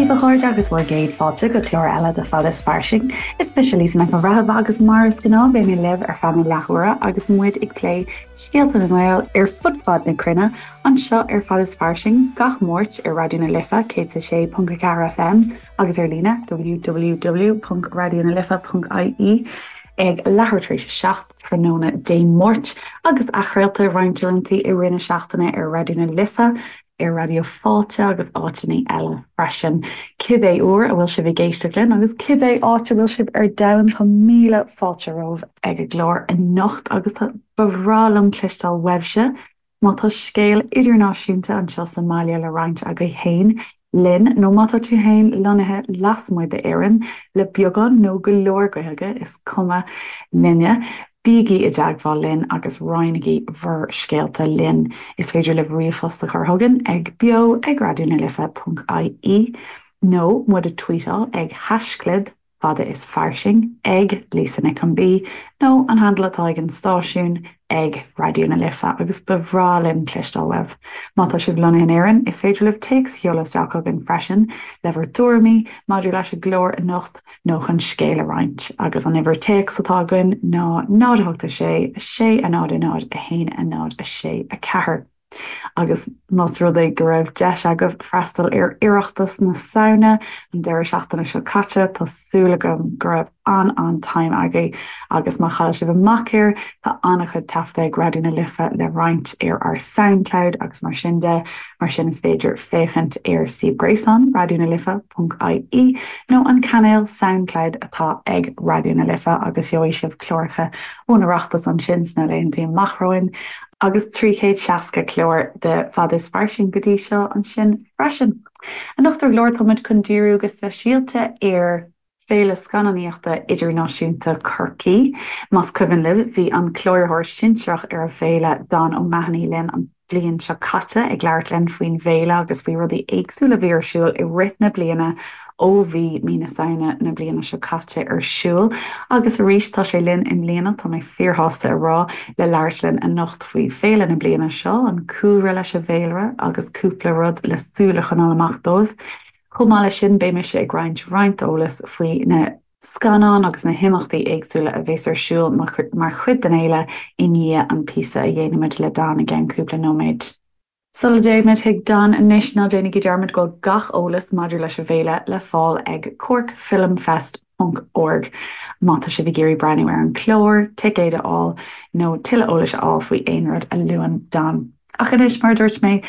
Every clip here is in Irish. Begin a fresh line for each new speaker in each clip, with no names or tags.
daoibh a chairde agus bhur gcéad fáilte go clár eile de Fada is Fairsing. Is mise Lisa Nic an Bhreithimh agus mar is gnáth beidh mé libh ar feadh na leathuaire agus muid ag plé scéalta na nGael ar fud fad na cruinne anseo ar Fada is Fairsing gach Máirt ar Raidió na Life 106.4 FM agus ar líne www.raidionalife.ie ag leathuair tar éis a 7 tráthnóna Dé Máirt agus athchraolta roinnt uaireanta i rith na seachtaine ar Raidió na Life ar Raidió Fáilte agus áiteanna eile freisin. Cibé uair a bhfuil sibh ag éisteacht linn agus cibé áit a bhfuil sibh ar domhan, tá míle fáilte romhaibh ag an gclár anocht agus tá ba bhreá liom cloisteáil uaibhse má tá scéal idirnáisiúnta anseo sa mbaile le roinnt agaibh féin linn nó má tá tú féin lonnaithe lasmuigh d'Éirinn le beagán nó go leor Gaeilge, is cuma linne. Bígí i dteagmháil linn agus roinnigí bhur scéalta linn. Is féidir libh ríomhphost a chur chugainn ag beo ag raidionalife.ie nó muid a tweetáil ag haischlib fada is fairsing ag Lisa Nic an B nó an handle atá ag an stáisiún ag Raidió na Life agus ba bhreá linn cloisteáil uaibh. Má tá sibh lonnaithe in Éirinn, is féidir libh téacs a sheoladh isteach chugainn freisin le bhur dtuairimí maidir leis an gclár anocht nó chun scéal a roinnt, agus an uimhir téacs atá againn ná 0 8 6 6 0 0 1 0 6 4. Agus más rud é go raibh deis agaibh freastal ar Oireachtas na Samhna an deireadh seachtaine seo caite, tá súil agam go raibh an-an-time agaibh agus má chaill sibh amach air, tá an-chuid taifeadta ag Raidió na Life le roinnt ar ár Soundcloud agus mar sin de. Mar sin is féidir féachaint ar suíomh gréasáin Raidió na Life ponc ie nó an cainéal Soundcloud atá ag Raidió na Life agus gheobhaidh sibh cláracha ón Oireachtas ansin sna laethanta amach romhainn agus 360 clár de Fada is Fairsing go dtí seo ansin freisin. Anocht ar an gclár tá muid chun díriú go speisialta ar Féile Scannánaíochta Idirnáisiúnta Chorcaí. Más cuimhin libh, bhí an cláraitheoir sinsearach ar an bhféile, Don O'Mahony, linn an bhliain seo caite ag labhairt linn faoin bhféile agus faoi rudaí éagsúla a bhí ar siúl i rith na bliana ó bhí mí na Samhna na bliana seo caite ar siúl. Agus arís tá sé linn i mbliana, tá mé fíorshásta a rá, le labhairt linn anocht faoi féile na bliana seo, an cúlra leis an bhféilire agus cúpla rud le súil a choinneáil amach dóibh. Chomh maith leis sin, beidh mise ag roinnt roinnt eolais faoi na scannáin agus na himeachtaí éagsúla a bheas ar siúl mar chuid den fhéile i ndiaidh an píosa a dhéanfaimid le Don i gceann cúpla nóiméad. Sula dtéimid chuig Don anois, ná déanaigí dearmad go bhfuil gach eolas maidir leis an bhféile le fáil ag corkfilmfest ponc org má tá sibh ag iarraidh breathnú ar an chlár, ticéid a fháil nó tuilleadh eolais a fháil faoi aon rud a luann Don. Ach anois, mar a dúirt mé,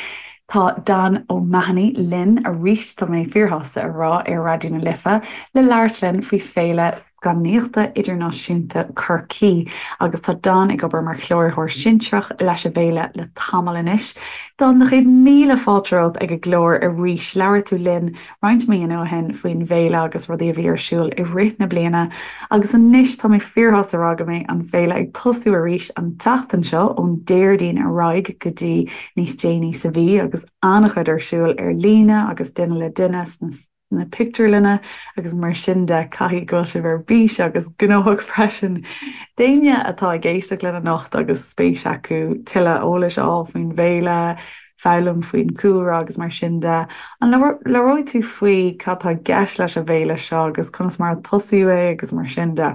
tá Don O'Mahony linn arís, tá mé fíorshásta a rá, ar Raidió na Life le labhairt linn faoi Féile Scannánaíochta Idirnáisiúnta Chorcaí agus tá Don ag obair mar chláraitheoir sinsearach leis an bhféile le tamall anois. Don, do chéad míle fáilte romhat ag an gclár arís. Labhair tú linn roinnt míonna ó shin faoin bhféile agus rudaí a bhí ar siúl i rith na bliana agus anois tá mé fíorshásta a rá go mbeidh an féile ag tosú arís an tseachtain seo ón Déardaoin ar aghaidh go dtí níos déanaí sa mhí agus an-chuid ar siúl ar líne agus duine le duine sna pictiúrlanna agus mar sin de. Caithfidh go bhfuil sibh ar bís agus gnóthach freisin. D'éinne atá ag éisteacht linn anocht agus spéis acu tuilleadh eolais a fháil faoin bhféile, foghlaim faoin chúlra agus mar sin de. An labhróidh tú faoi cad tá i gceist leis an bhféile seo agus conas mar a tosaíodh é agus mar sin de?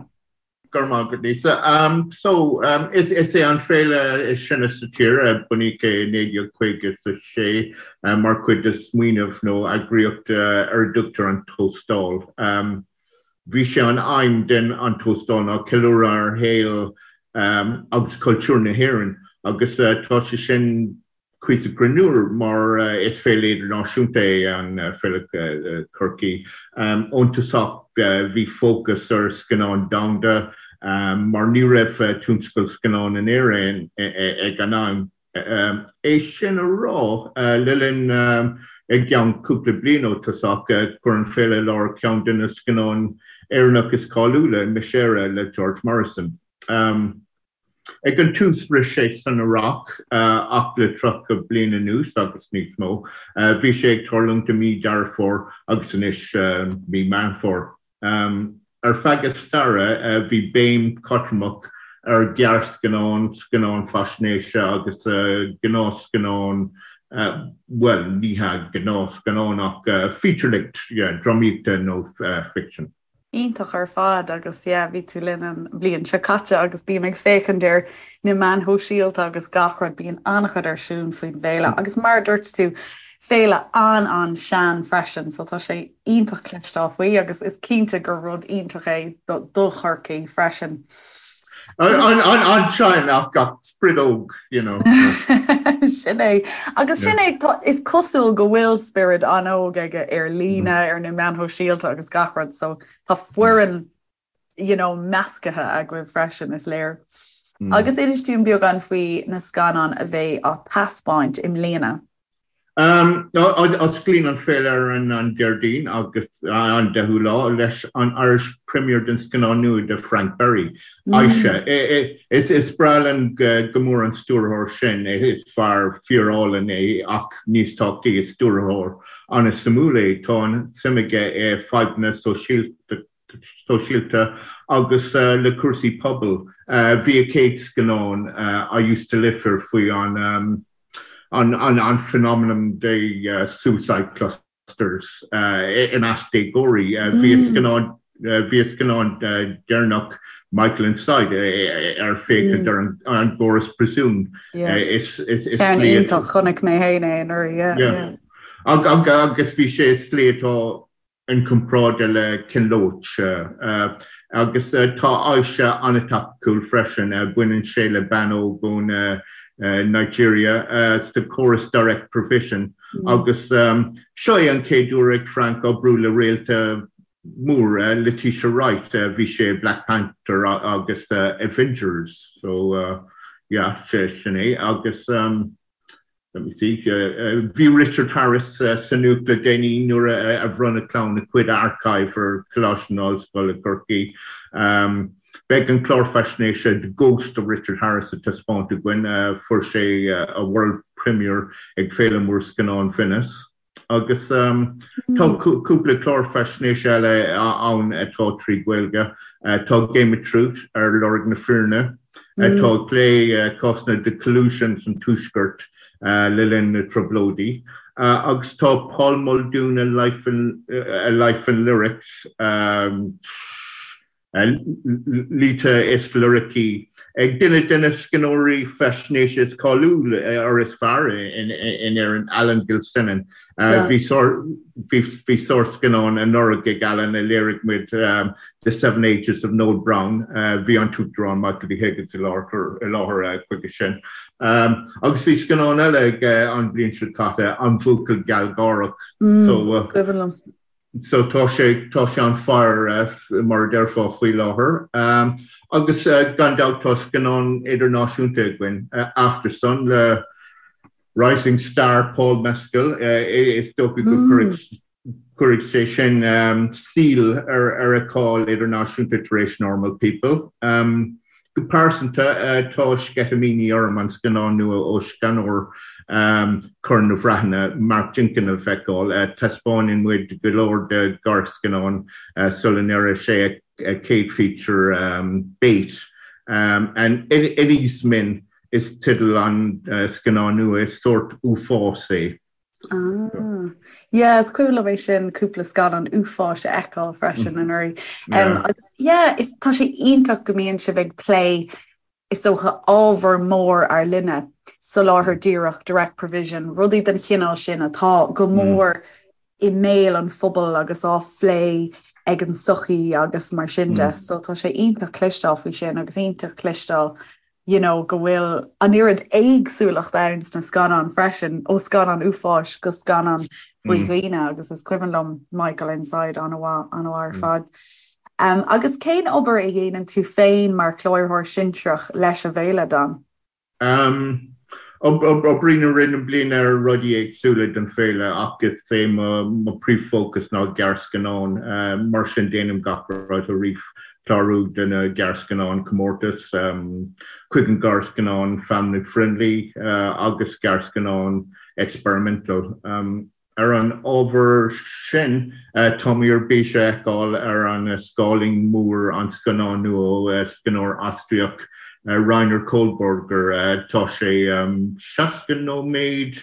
Go raibh maith agat, Lisa. So, is é an féile is sine sa tír, bunaíodh é i 1956 mar chuid de smaoineamh nó eagraíocht ar a dtugtar an Tóstal. Bhí sé an aidhm den an Tóstal ná ceiliúradh ar shaol agus cultúr na hÉireann agus tá sé sin cuíosach greannmhar mar is féile idirnáisiúnta é an Féile Chorcaí. Ón tosach bhí fócas ar scannáin domhanda mar ní raibh tionscal scannán in Éirinn ag an am. É sin a rá, le linn i gceann cúpla bliain ó tosach, chuir an féile i láthair ceann de na scannáin Éireannach is cáiliúla, Miss Éire le George Morrison. Ag an tús rith sé san earrach ach le 30 bliain anuas agus níos mó, bhí sé ag tarlúint i mí Deireadh Fómhair agus anois mí Meán Fómhair. Ar feadh a staire, bhí béim chotromach ar ghearrscannáin, scannáin faisnéise agus gnáthscannáin. Bhuel, ní hea gnáthscannán ach feature-length, yeah, drámaíochta nó ficsean.
Iontach ar fad agus yeah bhí tú linn an bhliain seo caite agus bím ag féachaint ar na meáin shóisialta agus gach rud, bíonn an-chuid ar siúl faoin bhféile agus mar a dúirt tú, féile an-an-sean freisin so tá sé iontach cloisteáil faoi agus is cinnte gur rud iontach é do Chorcaigh freisin.
An-sean ach ach spiorad óg, you know.
Sin é. Agus sin é, is cosúil go bhfuil spiorad an-óg aige ar líne, ar na meáin shóisialta agus gach rud, so tá foireann you know, measctha agaibh freisin, is léir. Agus inis dúinn beagán faoi na scannáin a bheidh á taispeáint i mbliana.
Osclaíonn an féile ar an Déardaoin agus an 10ú lá leis an Irish Premiere den scannán nua de Frank Berry, Aisha. Is breá linn go mór an stiúrthóir sin, is fear fíor-álainn é ach níos tábhachtaí is stiúrthóir an-suimiúil é. Tá an-suim aige i fadhbanna sóisialta agus le cúrsaí pobail. Bhí a chéad scannán, I Used to Live Here faoi an an phenomenon de suicide clusters i measc déagóirí. Bhí a scannán bhí a scannán deireanach Michael Inside ar féachaint ar an gcóras príosúin.
Ceann iontach, chonaic mé féin é anuraidh.
Agus bhí sé i slí atá inchomparáide le Ken Loach agus tá Aisha an-topicúil freisin. Baineann sé le bean óg ón Nigeria sa chóras Direct Provision agus seo é an chéad uair ag Frank oibriú le réalta mór, Letitia Wright, bhí sé i Black Panther agus Avengers so yeah sin é agus. Let me see. Bhí Richard Harris sa nuacht le déanaí nuair a bhronn a chlann a cuid archive ar Choláiste na hOllscoile Corcaigh. Beidh an clár faisnéise The Ghost of Richard Harris á taispeáint againn. Fuair sé a world premiere ag Féile Mór Scannán Venice. Agus tá cúpla clár faisnéise eile ann atá trí Ghaeilge. Tá Game of Truth ar lorg na fírinne, atá ag plé cásanna de collusion san Tuaisceart le linn na Trioblóidí. Agus tá Paul Muldoon, A Life in, A Life in Lyrics, Laoithe is liricí ag duine de na scríbhneoirí faisnéise is cáiliúla or is fearr in Éirinn, Alan Gilsenan. Bhí sárscannán anuraidh ag Alan a léirigh muid, The Seven Ages of Noel Browne. Bhí an tUachtarán Michael D. Higgins i láthair chuige sin. Agus bhí scannán eile aige an bhliain seo caite, An Buachaill Gealgháireach.
Is cuimhin liom.
So tá sé, tá sé on fire mar a déarfá faoi láthair. Agus gan dabht tá scannán idirnáisiúnta againn, Aftersun le rising star Paul Mescal. Is dócha go gcuirfidh sé sin síol ar a cháil idirnáisiúnta tar éis Normal People. Go pearsanta, tá sceitimíní orm an scannán nua ó scannánóir Chorn na Breataine, Mark Jenkin a fheiceáil. Taispeánann muid go leor de ghearrscannáin sula ndéarfaidh sé a chéad feature, Bait. And Inis Meáin is teideal an scannáin nua, is sórt uafás é.
Ah. Yeah, is cuimhin liom é sin cúpla scannán uafáis a fheiceáil freisin anuraidh. Um, agus yeah, is tá sé iontach go mbíonn sibh ag plé is dócha ábhar mór ár linne, soláthar díreach, direct provision, rudaí den chineál sin atá go mór i mbéal an phobail agus á phlé ag an tsochaí agus mar sin de. So tá sé iontach cloisteáil faoi sin agus iontach cloisteáil you know, go bhfuil an oiread éagsúlacht ann sna scannáin freisin, ó scannán uafáis go scannán faoi dhaoine agus is cuimhin liom Michael Inside an-mhaith, an-mhaith ar fad. Um, agus cén obair a dhéanann tú féin mar chláraitheoir sinsearach leis an bhféile, Dan?
Um, Oibrím i rith na bliana ar rudaí éagsúla don féile ach is é mo príomhfhócas ná gearrscannáin, mar sin déanaim gach rud ó ríomhchlárú de na gearrscannáin comórtas chuig an gearrscannán family friendly agus gearrscannán experimental. Ar an ábhar sin, táimid ar bís a fheiceáil ar an scáileán mór an scannán nua ó scannánóir Ostairiach Rainer Kohlberger. Tá sé 60 nóiméad.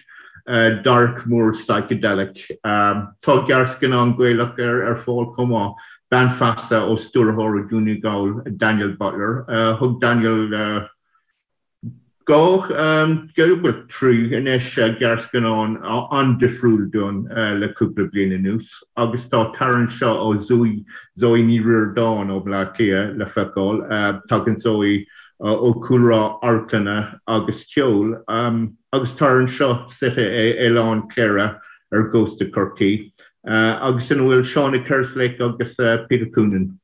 Dark mór psychedelic. Tá gearrscannán Gaelach ar fáil chomh maith, Bean Feasa ó stiúrthóir ó Dhún na nGall, Daniel Butler. Thug Daniel 2, bhuel 3 anois, gearrscannán an-difriúil dúinn le cúpla bliain anuas agus tá Tar Anseo ó Zoe, Zoe Ní Ríordáin ó Bhaile Átha Cliath le feiceáil. Tagann Zoe ó chúlra amharclainne agus ceoil agus Tar Anseo suite i Oileán Chléire ar gcósta Chorcaí agus ina bhfuil Seána Kerslake agus Peter Coonan.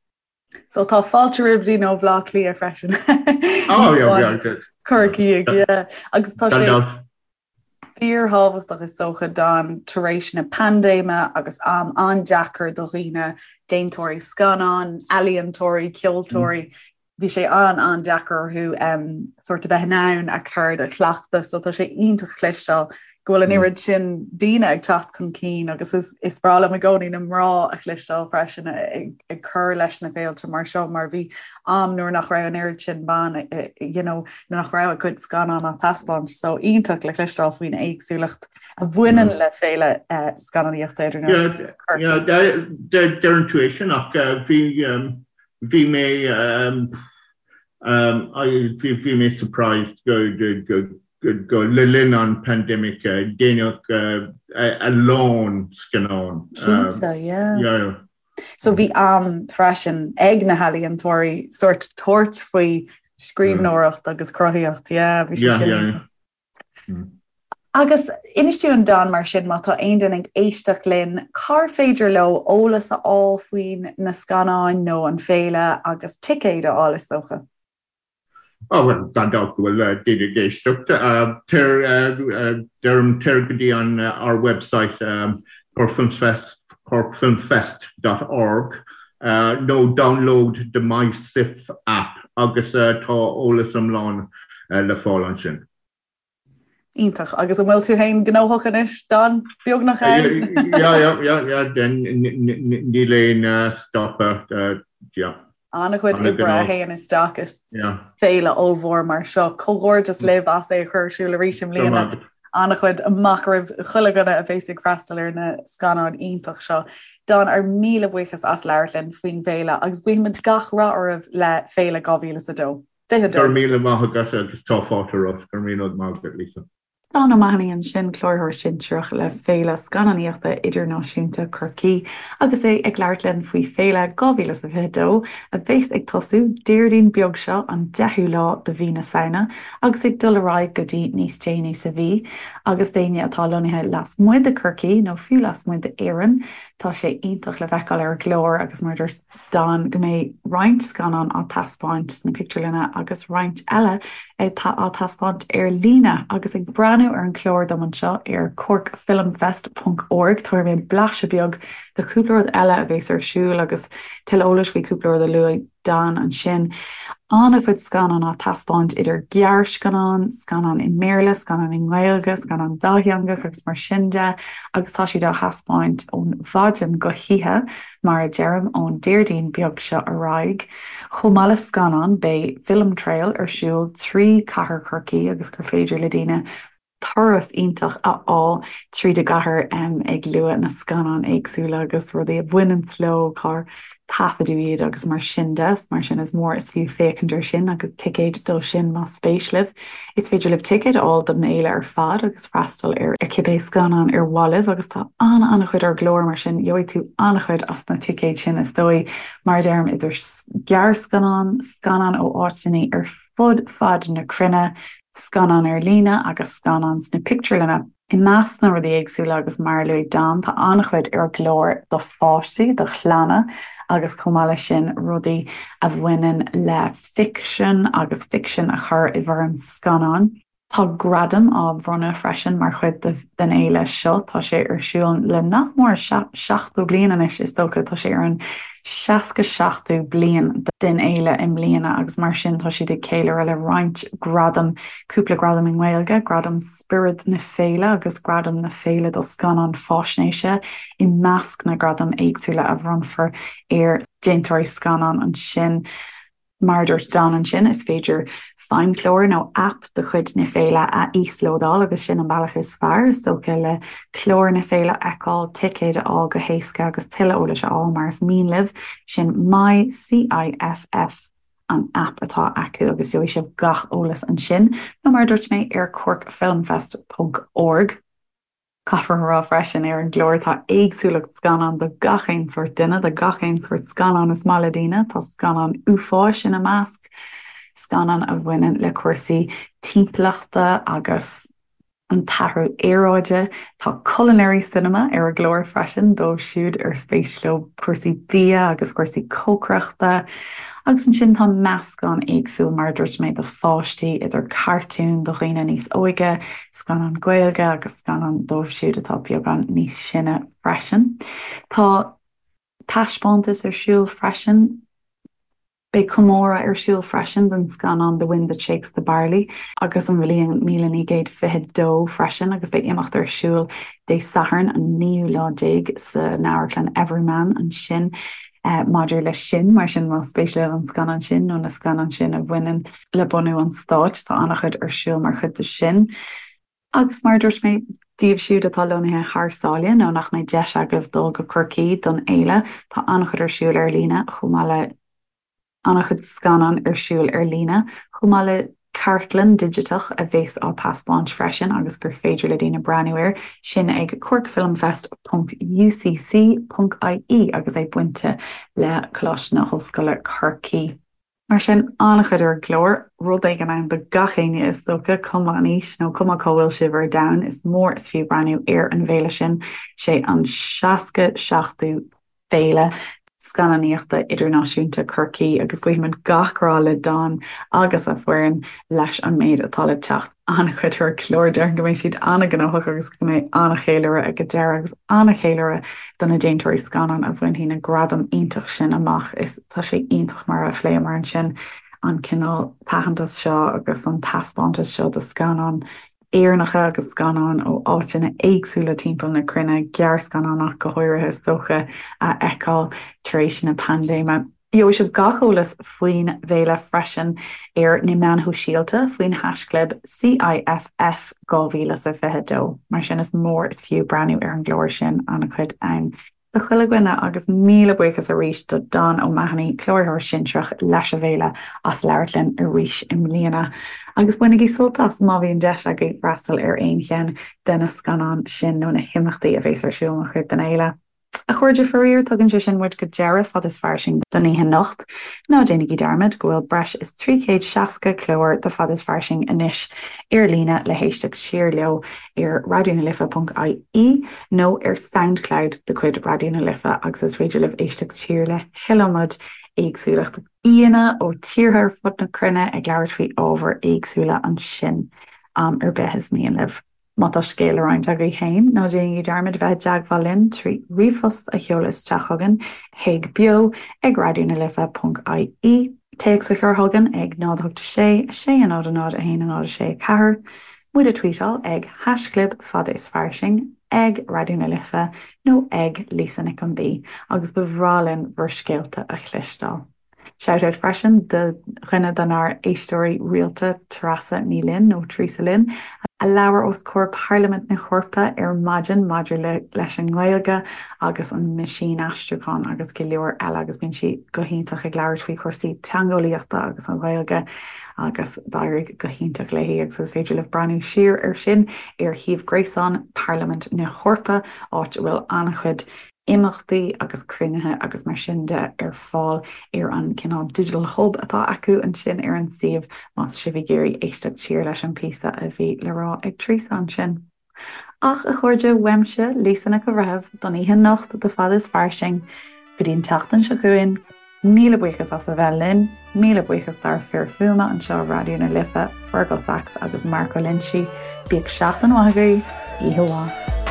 So tá fáilte roimh daoine ó Bhaile Átha Cliath freisin.
Oh, yeah, yeah, yeah.
Corcaigh, yeah. Agus tá sé fíorthábhachtach is dócha Don tar éis na paindéime agus am an-deacair do dhaoine, déantóirí scannán, ealaíontóirí, ceoltóirí, bhí sé an-an-deacair orthu um, sort a bheith in ann a gceird a chleachtadh, so tá sé iontach cloisteáil go bhfuil an oiread sin daoine ag teacht chun cinn agus is, is breá liom i gcónaí na mná a chloisteáil freisin ag, ag cur leis na féilte mar seo mar bhí am nuair nach raibh an oiread sin ban you know, nach raibh a gcuid scannán á taispeáint so iontach le cloisteáil faoin éagsúlacht a bhaineann le féile uh, scannánaíochta
idirnáisiúnta. Deireann tú é sin ach uh, bhí um, bhí mé um, um, bhí, bhí mé surprised go, go, go go le linn an pandemic déanadh a lán scannán.
Cinnte, yeah. Yeah. So bhí am freisin ag na healaíontóirí sort tabhairt faoi scríbhneoireacht agus cruthaíocht, yeah, bhí sé sin. Yeah, yeah. Mm. Agus inis dúinn Don mar sin má tá aon duine ag éisteacht linn, cár féidir leo eolas a fháil faoin na scannáin nó an féile agus ticéid a fháil is dócha?
Ó bhuel, gan dabht go bhfuil daoine ag éisteacht. Tar, deirim, tar go dtí an ár website corkfilmfest, corkfilmfest dot org nó download the MySIFF app agus tá eolas iomlán le fáil ansin.
Iontach. Agus an bhfuil tú féin gnóthach anois, Don? Beagnach
ann? Yeah, yeah, yeah, yeah, níl aon stopadh, yeah.
An-chuid oibre a théann isteach i féile ollmhór mar seo. Comhghairdeas libh as é a chur ar siúl arís i mbliana. An-chuid amach roimh chuile dhuine a bheas ag freastal ar na scannáin iontach seo. Don, ár míle buíochas as labhairt linn faoin bhféile agus guímid gach rath oraibh le Féile 2002.
22. Go raibh míle maith agat agus tá fáilte romhat. Go raibh míle maith agat, Lisa.
Don O'Mahony ansin, Cláraitheoir Sinsearach le Féile Scannánaíochta Idirnáisiúnta Chorcaí agus é ag labhairt linn faoi Féile 2022 a bheas ag tosú Déardaoin beag seo an 10ú lá de mhí na Samhna agus ag dul ar aghaidh go dtí níos déanaí sa mhí. Agus d'éinne atá lonnaithe lasmuigh de Chorcaí nó fiú lasmuigh d'Éirinn, tá sé iontach le feiceáil ar an gclár agus mar a dúirt Don go mbeidh roinnt scannán á taispeáint sna pictiúrlanna agus roinnt eile á taispeáint ar líne. Agus ag breathnú ar an chlár dom anseo ar corkfilmfest ponc org tabharfaidh mé blaiseadh beag de chúpla rud eile a bheas ar siúl agus tuilleadh eolais faoi chúpla rud a luaigh Don ansin. An-chuid scannán á taispeáint idir gearrscannáin, scannáin i mBéarla, scannáin i nGaeilge, scannáin dátheangach agus mar sin de agus tá siad á thaispeáint ón mhaidin go hoíche. Mar a deirim, ón Déardaoin beag seo ar aghaidh, chomh maith le scannáin, beidh Film Trail ar siúl trí chathair Chorcaí agus gur féidir le daoine turas iontach a fháil tríd an gcathair ag lua na scannáin éagsúla agus rudaí a bhaineanns leo, cár taifeadadh iad agus mar sin de. Mar sin is mór is fiú féachaint air sin agus ticéid dó sin más spéis libh. Is féidir libh ticéid a fháil don fhéile ar fad agus freastal ar cibé scannán ar mhaith libh agus tá an-an-chuid ar an gclár mar sin gheobhaidh tú an-chuid as na ticéid sin is dóigh. Mar a deirim, idir ghearrscannáin, scannáin ó áiteanna ar fud fad na cruinne, scannáin ar líne agus scannáin sna pictiúrlanna. I measc na rudaí éagsúla agus mar a luaigh Don, tá an-chuid ar an gclár do pháistí, do chlanna agus chomh maith leis sin rudaí a bhaineann le ficsean agus ficsean a chur i bhfoirm scannáin. Tá gradaim á bhronnadh freisin mar chuid den fhéile seo. Tá sé ar siúl le nach mór 70 bliain anois is dócha. Tá sé ar an 67ú bliain den fhéile i mbliana agus mar sin tá siad ag ceiliúradh le roinnt gradam, cúpla gradam i nGaeilge, gradam Spiorad na Féile agus Gradam na Féile do Scannán Faisnéise i measc na ngradam éagsúla a bhronnfar ar dhéantóirí scannán ansin. Mar a dúirt Don ansin, is féidir. Feidhmchlár nó aip de chuid na féile a íoslódáil agus sin an bealach is fearr, is dócha, le clár na féile a fheiceáil, ticéid a fháil go héasca agus tuilleadh eolais a fháil mar is mian libh. Sin My CIFF an aip atá acu agus gheobhaidh sibh gach eolas ansin nó mar a dúirt mé ar corkfilmfest ponc org. Caithfear a rá freisin, ar an gclár tá éagsúlacht scannán do gach aon sórt duine, do gach aon sórt scannán is maith le daoine. Tá scannáin uafáis ina measc, scannáin a bhaineann le cúrsaí timpeallachta agus an t-athrú aeráide. Tá culinary cinema ar an gclár freisin dóibh siúd ar spéis leo cúrsaí bia agus cúrsaí cócaireachta. Agus ansin tá meascán éagsúil, mar a dúirt mé, do pháistí, idir cartúin do dhaoine níos óige, scannán Gaeilge agus scannán dóibh siúd atá beagán níos sine freisin. Tá taispeántas ar siúl freisin. Beidh comóradh ar siúl freisin don scannán The Wind That Shakes the Barley agus an bhliain 1922 freisin agus beidh imeacht ar siúl Dé Sathairn an naoú lá déag san Amharclann Everyman ansin maidir leis sin. Mar sin más spéis libh an scannán sin nó na scannáin sin a bhaineann le bunú an stáit. Tá an-chuid ar siúl mar chuid de sin. Agus mar a dúirt mé, daoibh siúd atá lonnaithe thar sáile nó nach mbeidh deis agaibh dul go Corcaigh don fhéile, tá an-chuid ar siúl ar líne, chomh maith le an-chuid scannán ar siúl ar líne, chomh maith le cartlann digiteach a bheas á taispeáint freisin agus gur féidir le daoine breathnú air, sin ag corkfilmfest ponc ucc ponc ie agus é bainte le Coláiste na hOllscoile Corcaigh. Mar sin, an-chuid ar an gclár, rud éigin ann do gach éinne is dócha, cuma an aois nó cuma cá bhfuil sibh ar domhan, is mór is fiú breathnú ar an bhféile sin. Sé an 67ú Féile Scannánaíochta Idirnáisiúnta Chorcaí agus guímid gach rath le Don agus a foireann leis an méid atá le teacht. An-chuid ar an gclár, déarfainn go mbeidh siad an-ghnóthach agus go mbeidh an-cheiliúradh ag an deireadh agus an-cheiliúradh do na déantóirí scannán a bhainfidh na gradaim iontach sin amach. Is tá sé iontach mar a phléamar ansin an cineál taithneantas seo agus an taispeántas seo de scannáin Éireannacha agus scannáin ó áiteanna éagsúla timpeall na cruinne, gearrscannáin ach go háirithe is dócha, a fheiceáil tar éis na paindéime. Gheobhaidh sibh gach eolas faoin bhféile freisin ar na meáin shóisialta faoin haischlib CIFF 2022. Mar sin is mór is fiú breathnú ar an gclár sin, an-chuid ann do chuile dhuine agus míle buíochas arís do Don O'Mahony, Cláraitheoir Sinsearach leis an bhféile, as labhairt linn arís i mbliana. Agus bainigí sult as má bhíonn deis agaibh freastal ar aon cheann de na scannáin sin nó na himeachtaí a bhéas ar siúl mar chuid den fhéile. A chairde, faraor, tugann sé sin muid go deireadh Fad is Fairsing don oíche anocht. Ná déanaigí dearmad go bhfuil breis is 360 clár de Fad is Fairsing anois ar líne le héisteacht siar leo ar raidionalife.ie nó ar Soundcloud de chuid Raidió na Life agus is féidir libh éisteacht siar le hiliomad éagsúlacht aíonna ó tíortha ar fud na cruinne ag labhairt faoi ábhair éagsúla ansin am ar bith is mian libh. Má tá scéal le roinnt agaibh féin, ná déanaigí dearmad bheith i dteagmháil linn trí ríomhphost a sheoladh isteach chugainn chuig beo ag raidionalife.ie, téacs a chur chugainn ag 0 8 6 6 0 0 1 0 6 4, muid a tweetáil ag haischlib fad is fairsing, ag Raidió na Life nó ag Lisa Nic an B agus ba bhreá linn bhur scéalta a chloisteáil. Shout-out freisin do dhuine denár éisteoirí rialta, Treasa Ní Fhloinn, nó Teresa Lynn, a labhair os comhair Parlaimint na hEorpa ar maidin maidir le leis an nGaeilge agus an meaisínaistriúchán agus go leor eile agus bíonn sí go hiontach ag labhairt faoi chúrsaí teangeolaíochta agus an Ghaeilge agus d'éirigh go hiontach léi agus is féidir libh breathnú siar ar sin ar shuíomh gréasáin Parlaimint na hEorpa áit a bhfuil an-chuid imeachtaí agus cruinnithe agus mar sin de ar fáil ar an cineál digital hub atá acu ansin ar an suíomh más sibh ag iarraidh éisteacht siar leis an píosa a bhí le rá ag Teresa ansin. Ach, a chairde, uaimse, Lisa Nic an Bhreithimh, don oíche anocht do Fad is Fairsing, go dtí an tseachtain seo chugainn, Míle buíochas as a bheith linn. Míle buíochas dár fir fuaime anseo i Raidió na Life, Fergal Sachs agus Marco Lenci. Bíodh seachtain mhaith agaibh. Oíche mhaith.